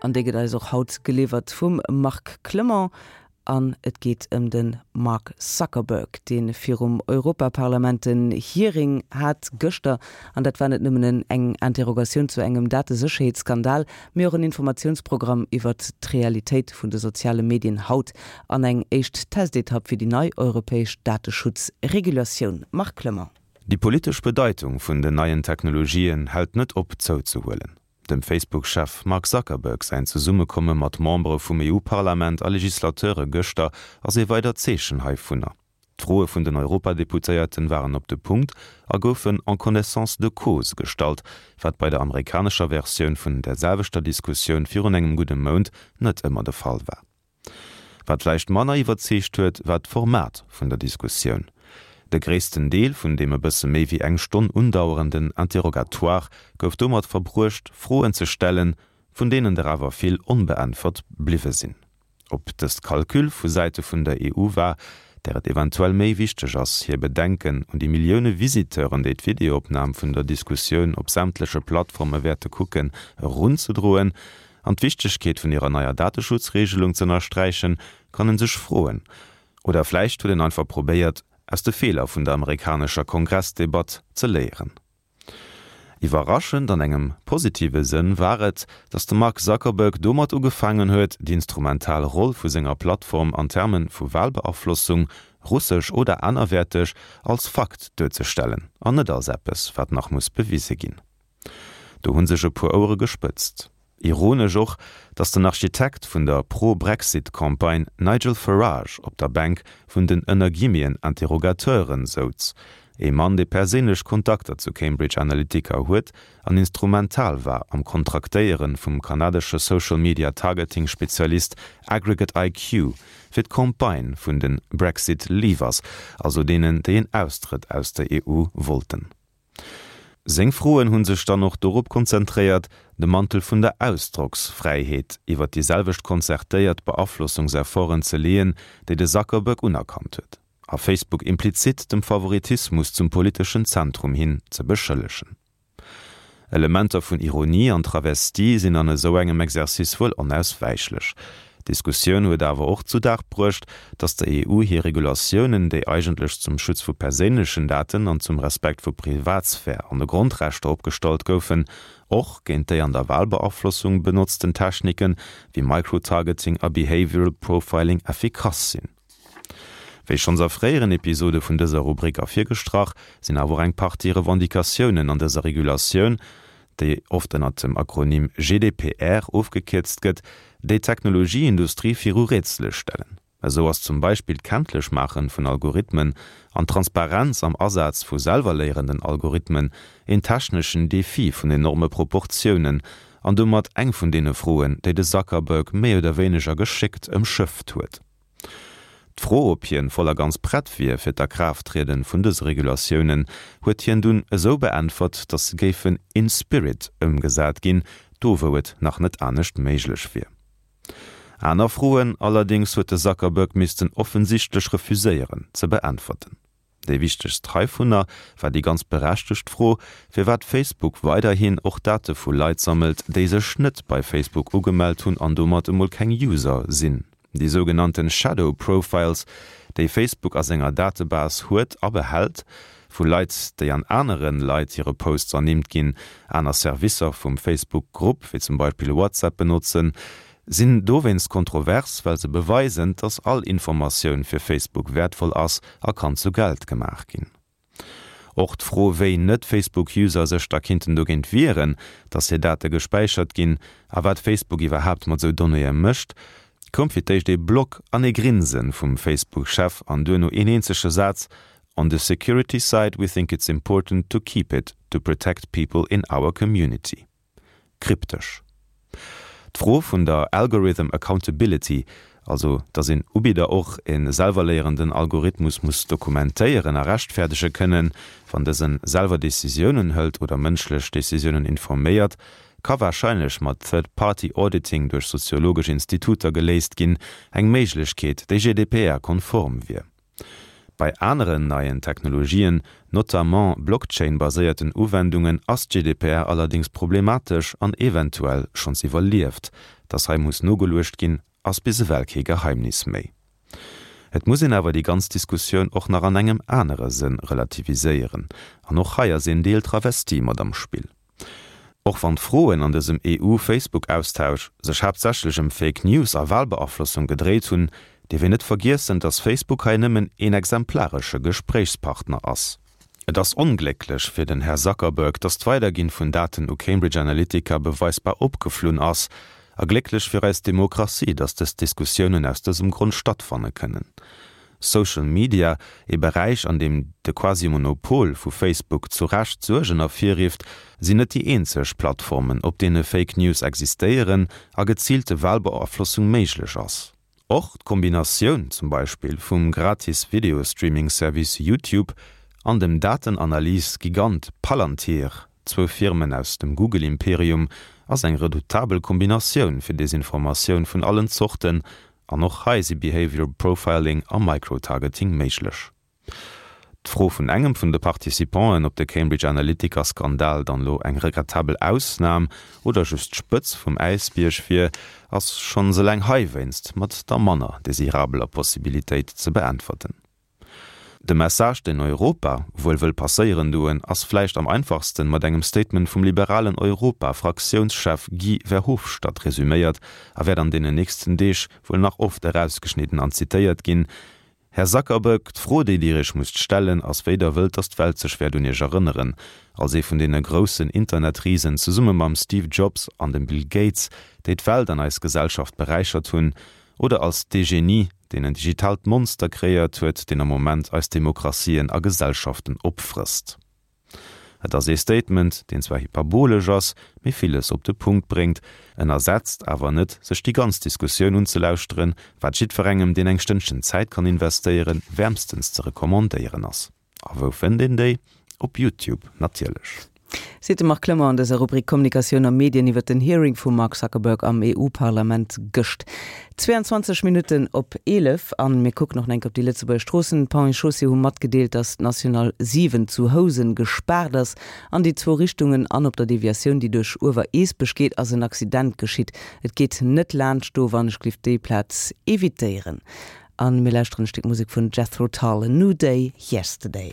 An déi gëtt eis och haut geliwwert vum Marc Clement. An et geet ëm de Mark Zuckerberg, dee virum Europaparlament en Hearing hat gëschter. An dat war net nëmmen en eng Interrogatioun zu engem Datesécherheetsskandal, mee och en Informatiounsprogramm iwwert d'Realitéit vun de soziale Medien haut an eng éischt Testetapp fir déi nei europäesch Dateschutzregulatioun. Marc Clement. Déi politesch Bedeitung vun den neien Technologien hält net op zouzehuelen. Dem Facebook-Chef Mark Zuckerberg säin Zesummekomme mat Membere vum EU-Parlament a Legislateure gëschter ass ee weidert Zeechen heivunner. D'Froe vun den Europadeputéierten waren op de Punkt a goufen en connaissance de cause gestallt, wat bei der amerikanescher Versioun vun der selwechter Diskussioun virun engem gudde Mount net ëmmer de Fall war. Wat vläicht manner iwwerzeegt huet, war d'Format vun der Diskussioun. De gréissten Deel vun deem e bësse méi wéi eng Stonn undauerenden Interrogatoire gouf domat verbruecht, Froen ze stellen, vun deenen der awer vill onbeäntwert bliwwe sinn. Ob dëst Calcul vu Säite vun der EU war, där et eventuell méi wichteg ass, hir Bedenken un déi Millioune Visiteuren, déi d'Videoopnam vun der Diskussioun op sämtleche Plattforme wäerte kucken, erunzedroen, An d'Wichtegkeet vun hirer neier Dateschutzregelung z'ënnersträichen, kann en sech froen. Oder vläicht huet en einfach probéiert, aus de Feeler vun der amerikanescher Kongressdebatt ze léieren. Iwwerraschend an engem positive Sënn war et, datt de Mark Zuckerberg domat ugefaangen huet, déi instrumental Roll vu senger Plattform an Terme vu Walbeaflossung, russesch oder anerwäerteg, als Fakt duerzestellen an net als eppes, wat nach muss bewise ginn. Do hu sech e puer Ouere gespëtzt. Ironesch och, datt den Architekt vun der Pro-Brexit-Campagne Nigel Farage op der Bänk vun den ënner Guillemeten Interrogateuren souz, ee Mann, dee perséinlech Kontakter zu Cambridge Analytica huet an instrumental war am Kontraktéiere vum kanadesche Social-Media-Targeting-Spezialist Aggregate IQ fir d'Campagne vun de Brexit Leavers, also deenen, déi een Austrëtt aus der EU wollten. Seng Froen hu sech dann och dorop konzentréiert, de Mantel vun der Ausdrocksfräiheet iwwer déi selwecht konzertéiert Beaflossungsefforten ze leeën, déi de Zuckerberg unerkannt huet, a Facebook implizit dem Favoritismus zum politeschen Zentrum hin ze beschëllegen. Elementer vun Ironie an Travestie sinn an esou engem Exercice wuel onauswäichlech. D'Diskussioun huet awer och zu Dag bruecht, datt der EU hir Regulatiounen, déi eigentlech zum Schutz vu perséinlechen Daten an zum Respekt vu Privatsphär an de Grondrechter opgestallt goufen, och géint déi an der Walbeaflossung benotzten Techniken, wéi Microtargeting a Behavioral Profiling effikass sinn. Wéi schonns a fréieren Episode vun dëser Rubrik ervirgestrach, sinn awer och eng Partie Revendicatiounen an dëser Regulatioun, déi oft ënnert dem Akronym GDPR ofgekierzt gëtt, déi d'Technologieindustrie viru Rätsele stellen. Esou ass zum Beispill d'Kenntlechmaachen vun Algorithmen an d'Transparenz am Asaz vu selwerléierenden Algorithmen een techneschen Defi vun enorme Proportiounen an domat eng vun deene Froen, déi de Zuckerberg méi oder wéineger geschéckt ëmschëfft huet. D'Fro, ob hien voll a ganz prett wier fir d'Akraafttrieden vun dëse Regulatiounen, huet hien dunn esou beäntwert, datt se géifen in spirit ëmgesat ginn, do wou et nach net anescht méiglech wier. Aner Froen allerdéngs huet de Zuckerberg missten offensichtlech refuséieren ze beäntwerten. Déi wichtegst heivunner war déi ganz berechtegt Fro, firwat Facebook weiderhin och Date vu Leit sammelt, déi sech net bei Facebook ugemellt hunn an domat emol keng User sinn. Déi sougenannten Shadow Profiles, déi Facebook a senger Datebase huet a behält, vu Leit, déi an anere Leit hire Posts ernimmt ginn, aner Servicer vum Facebook-Grupp, wéi zum Beispill WhatsApp, benotzen, Sinn dowéinst kontrovers, well se beweisen, dass all Informatioun fir Facebook wäertvoll ass a kann zu Geld gemaach ginn. Och d'Fro, wéi Net-Facebook-User sech da kinnten dogéint wieren, dass hir Date gespäichert ginn a wat Facebook iwwerhaapt mat sou Donnéeë mécht, koum fir d'éischt ee Block an ee Grinse vum Facebook-Chef an duerno een eenzege Saz, On the security side, we think it's important to keep it to protect people in our community. Kryptesch. D'Fro vun der Algorithm Accountability, also datt een Ubidder och e selwerléierenden Algorithmus muss dokumentéieren a rechtfäerdege kënnen, wann dëse selwer Decisiounen hëlt oder mënschlech Decisiounen informéiert, ka warscheinlech mat Third-Party-Auditing duerch soziologesch Instituter geléist ginn, eng Méiglechkeet, déi GDPR-konform wier. Bei aneren neien Technologien, notamment Blockchain-baséierten Uwendungen, ass d'GDPR allerdéngs problematesch an eventuell schonns iwwerlieft. Dass hei muss nogeluecht ginn, ass bis ewell kee Geheimnis méi. Et muss een awer déi ganz Diskussioun och nach an engem anere Sënn relativiséieren, an och hei ass een Deel Travestie mat am Spill. Och wann d'Froen an dësem EU-Facebook-Austausch sech haaptsächlech ëm Fake News a Walbeaflossung gedréit hunn, dierf een net vergiessen, dass Facebook hei nëmmen een exemplaresche Gespréichspartner ass. Et ass onglécklech fir den Här Zuckerberg, dass d'Weiderginn vun Daten u Cambridge Analytica beweisbar opgeflunn ass, a glécklech fir eis Demokratie, dass dës Diskussiounen aus dësem Grond stattfanne kënnen. Social Media, ee Beräich an deem de Quasi-Monopol vu Facebook zu Recht Suergen ervirrifft, sinn net déi eenzeg Plattformen, op deene Fake News existéieren a geziilte Walbeaflossung méiglech ass. Och d'Kombinatioun zum Beispill vum gratis Videostreaming-Service YouTube an dem Datenanalys-Gigant Palantir, zwou Firmen aus dem Google-Imperium, ass eng redoutabel Kombinatioun fir Desinformatioun vun allen Zorten, an och hei si Behavioral Profiling a Microtargeting méiglech. D'Fro vun engem vun de Participanten, ob de Cambridge Analytica-Skandal dann elo eng regrettabel Ausnam oder just d'Spëtz vum Äisbierg wier, ass schonns eleng heiwéinst mat der manner desirabeler Possibilitéit ze beäntwerten. De Message, deen Europa wuel wëll passéieren doen, ass vläicht am einfachsten mat engem Statement vum liberalen Europa-Fraktiounschef Guy Verhofstadt resüméiert a wäert an deenen nächsten Deeg wuel nach oft erausgeschnidden an zitéiert ginn, Här Zuckerberg, d'Fro, déi Dir Iech musst stellen, ass, wéi Der wëllt, datt d'Welt sech wäert un Iech erënneren, als ee vun deene groussen Internetrisen, zesumme mam Steve Jobs an dem Bill Gates, déi d'Welt an eis Gesellschaft beräichert hunn, oder als dee Genie, deen en digitaalt Monster kreéiert huet, deen am Moment eis Demokratien a Gesellschaften opfrësst. Et ass ee Statement, deen zwar hyperbolesch ass, mee villes op de Punkt bréngt. En ersetzt awer net, sech déi ganz Diskussioun unzelauschteren, wat jiddwerengem, deen eng Stënnchen Zäit kann investéieren, wäermstens ze recommandéieren ass. A wou fënnt een déi? Op Youtube natierlech. Seet de Marc Clement an dëser Rubrik Kommunikatioun a Medien iwwer den Hearing vum Mark Zuckerberg am EU-Parlament gëscht. 22 Minutten op 11 an mir kucken och nach eng Kéier op déi Lëtzebuerger Stroossen. D'Ponts et Chaussées hu matgedeelt, datt d'National 7 zu Housen gespaart ass an déi zwou Richtungen an op der Deviatioun, déi duerch Uewer-Eesbech geet, ass en Accident geschitt. Et geet net laanscht do, wann ech glift déi Plaz evitéieren. A mir lauschteren e Stéck Musek vun Jethro Tull, A New Day Yesterday.